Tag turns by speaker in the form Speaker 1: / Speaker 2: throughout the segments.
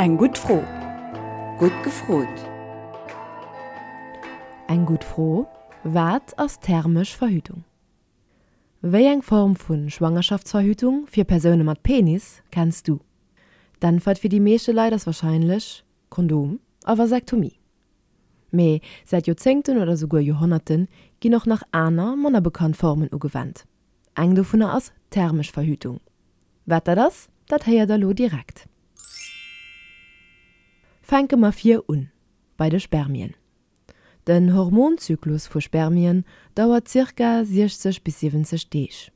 Speaker 1: Eng gutt Fro.
Speaker 2: Gutt gefrot.
Speaker 3: Eng gutt Fro, Wat ass thermesch Verhütung? Wéi eng Form vu Schwangerschaftsverhütung fir Persoune mat Penis kenns du? D'Äntwert fir déi meeschte Leit ass warscheinlech Kondom a Vasektomie. Mee säit Joerzéngten oder souguer Joerhonnerte ginn och nach aner, manner bekannt Formen ugewennt. Eng dovunner ass thermesch Verhütung. Wat dat ass, dat héiert der lo direkt. Fänke mer vir un, bei de Spermien. Den Hormonzyklus vu Spermien dauert zirka 60 bis 70 Deeg.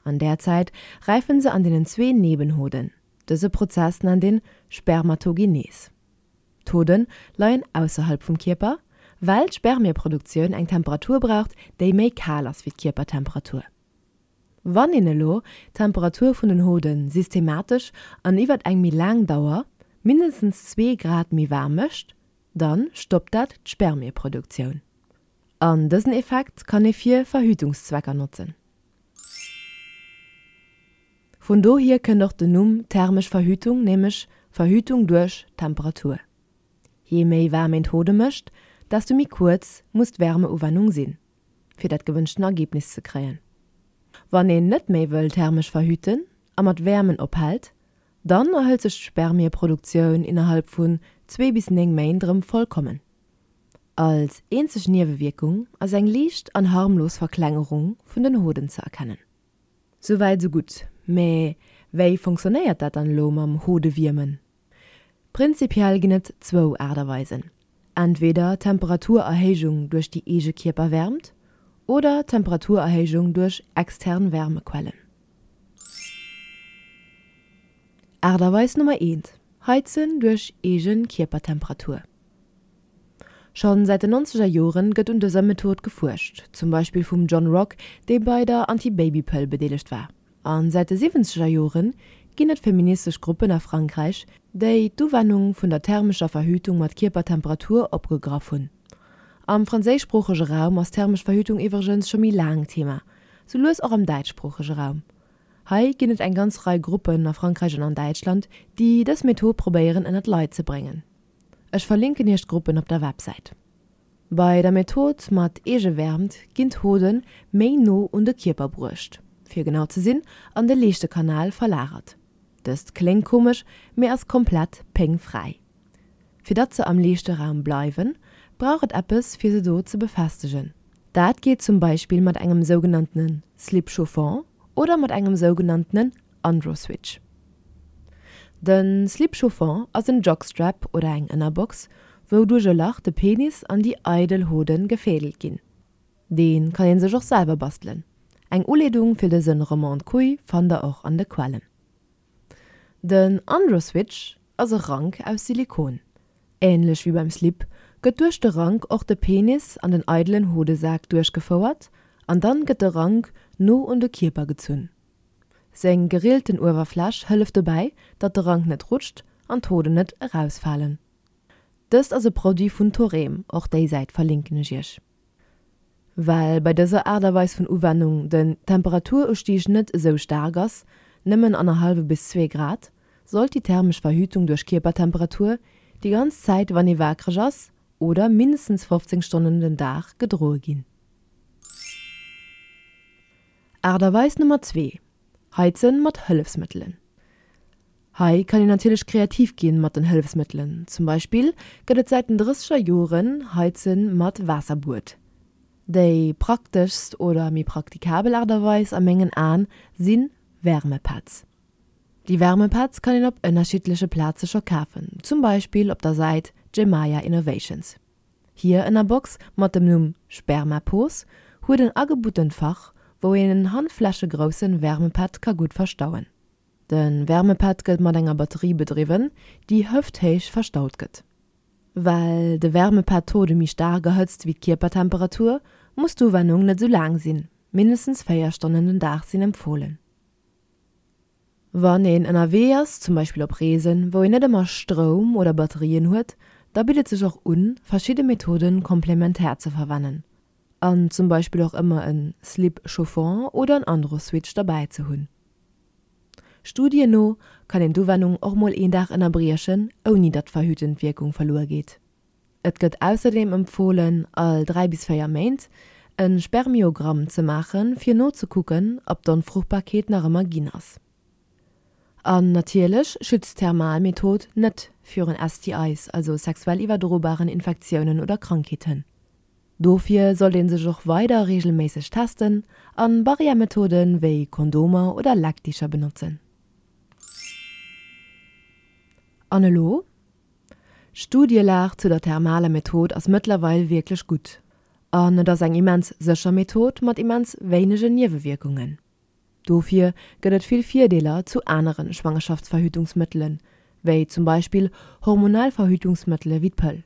Speaker 3: An där Zäit räifen se an deenen zwee Nebenhoden. Dëse Prozess nennt een Spermatogenes. D'Hoden leien ausserhalb vum Kierper, well d'Spermieproduktioun eng Temperatur braucht, déi méi kal ass wéi d'Kierpertemperatur. Wann een elo d'Temperatur vun den Hode systematesch an iwwert eng méi laang Dauer mindestens zwee Grad méi waarm mécht, dann stoppt dat d'Spermieproduktioun. An dësen Effekt kann ee fir Verhütungszwecker notzen. Vun dohier kënnt och den Numm thermesch Verhütung, nämlech Verhütung duerch Temperatur. Jee méi waarm een d'Hode mécht, desto méi kuerz muss d'Wärmeuwennung sinn, fir dat gewënschten Ergebnis ze kréien. Wann een net méi wëll thermesch verhüten a mat Wäermen ophält, dann erhëlt sech d'Spermieproduktioun innerhalb vun zwee bis 9 Méint erëm vollkommen. Als eenzeg Niewewierkung ass eng liicht an harmlos Verklengerung vun den Hoden ze erkennen. Souwäit sou gutt, mä wéi fonctionnéiert dat dann elo mam Hodewiermen? Prinzipiell ginn et zwou Aart a Weisen, entweder Temperaturerhéijung duerch déi eege Kierperwärmt oder Temperaturerhéijung duerch extern Wärmequellen. Aart a Weis Nummer eent, Heizen duerch eege Kierpertemperatur. Schonn säit den nonzeger Joren gëtt un dëser Method gefuerscht, zum Beispill vum John Rock, dee bei der Anti-Baby-Pëll bedeelegt war. A säit de siwwenzeger Jore ginn et feministesch Gruppen a Frankräich, déi d'Uwennung vun der thermescher Verhütung mat Kierpertemperatur opgegraff hunn. Am franséischsproochege Raum ass thermesch Verhütung iwwregens scho méi laang Thema, sou lues och am däitschsproochege Raum. Hei ginn et eng ganz Rei Gruppen a Frankräich an an Däitschland, déi dës Method probéieren ënnert d'Leit ze bréngen. Ech verlinken iech d'Gruppen op der Websäit. Bei der Method mat Eegewäermt ginn d'Hoden méi no un de Kierper bruecht, fir genau ze sinn an de Leeschtekanal verlagert. Dëst kléngt komesch, mee ass komplett péngfräi. Fir datt se am Leeschteraum bleiwen, brauch et eppes fir se do ze befestegen. Dat geet zum Beispill mat engem sougenanntene Slip chauffant oder mat engem sougenanntenen Androswitch. De Slip chauffant ass en Jockstrap oder eng Ënnerbox, wou duerch e Lach de Penis an déi eidel Hoden gefädelt ginn. Dee kann een sech och selwer bastelen. Eng Uleedung fir dësen Remonte-Couille fannt der och an de Quellen. Den Androswitch ass e Rank aus Silikon. Ähnlech wéi beim Slip gëtt duerch de Rank och de Penis an den eidelen Hodesak duerchgefouert an dann gëtt de Rank no un de Kierper gezunn. Seng gerillten Uewerfläch hëlleft dobäi, datt de Rank net rutscht an d'Hoden net erausfalen. Dëst ass e Produit vun Thorem, och déi Säit verlinken ech iech. Well bei dëser Aart a Weis vun Uwennung den Temperaturustieg net esou staark ass, nëmmen annerhallwe bis zwee Grad, sollt déi thermesch Verhütung duerch Kierpertemperatur déi ganz Zäit wann ee waakreg ass oder mindestens 15 Stonnen den Dag gedroe ginn. Aart a Weis Nummer zwee, Heizen mat Hëllefsmëttelen. Hei kann een natierlech kreativ ginn mat den Hëllefsmëttelen. Zum Beispill gëtt et säit den drësseger Joren Heizen mat Waasserbuet. Déi prakteschst oder méi praktikabel Aart a Weis a mengen Aen si Wärmepads. Déi Wärmepads kann een op ënnerschiddleche Plaze scho kafen, zum Beispill op der Säit Gemaya Innovations. Hir Ënnerbox mat dem Numm Spermapos huet en agebuttent Fach, wou een en handflächegroussen Wärmepad ka gutt verstauen. De Wärmepad gëtt mat enger Batterie bedriwwen, déi hëfthéich verstaut gëtt. Well de Wärmepad d'Hode méi staark erhëtzt wéi d'Kierpertemperatur, muss d'Uwennung net sou laang sinn, mindestens 4 Stonnen den Dag sinn empfohlen. Wann een ënnerwee ass, zum Beispill op Reesen, wou een net ëmmer Stroum oder Batterien huet, da bitt et sech och un, verschidde Methoden komplementär ze verwennen an zum Beispill och ëmmer en Slip chauffant oder en Androswitch derbäi ze hunn. Studien no kann een d'Uwennung och mol een Dag ënnerbriechen, ouni datt d'verhütend Wierkung verluer geet. Et gëtt ausserdeem empfohlen, all 3 bis 4 Méint e Spermiogramm ze maachen, fir nozekucken, ob d'Onfruchtbarkeet nach ëmmer ginn ass. An natierlech schützt d'Thermalmethod net virun STIs, also sexuell iwwerdrobaren Infektiounen oder Krankheeten. Dofir sollt een sech och weider reegelméisseg testen an Barrière-Methoden wéi Kondomer oder Leckdicher benotzen. An elo? D'Studielag zu der thermaler Method ass mëttlerweil wierklech gutt an et ass eng immens sécher Method mat immens wéinegen Niewewierkungen. Dofir gëtt et vill Virdeeler zu anere Schwangerschaftsverhütungsmëttelen, wéi zum Beispill hormonell Verhütungsmëttele wéi d'Pëll.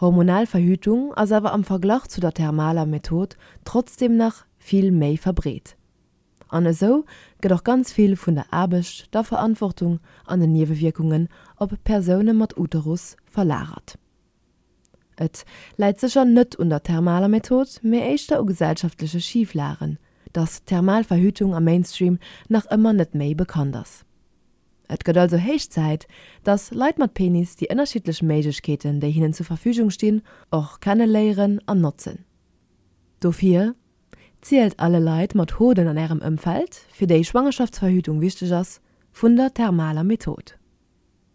Speaker 3: Hormonell Verhütung ass awer am Verglach zu der thermaler Method trotzdeem nach vill méi verbreet. An esou gëtt och ganz vill vun der Aarbecht, der Verantwortung an den Niewewierkungen op Persoune mat Uterus verlagert. Et läit sécher net un der thermaler Method, mee éischter u gesellschaftleche Schiflagen, dass d'thermal Verhütung am Mainstream nach ëmmer net méi bekannt ass. Et gëtt also héich Zäit, dass Leit mat Penis déi ënnerschiddlech Méiglechkeeten, déi hinnen zur Verfügung stinn, och kenne léieren an notzen. Dofir, Zielt alle Leit mat Hoden an ärem Ëmfeld, fir déi Schwangerschaftsverhütung wichteg ass, vun der thermaler Method.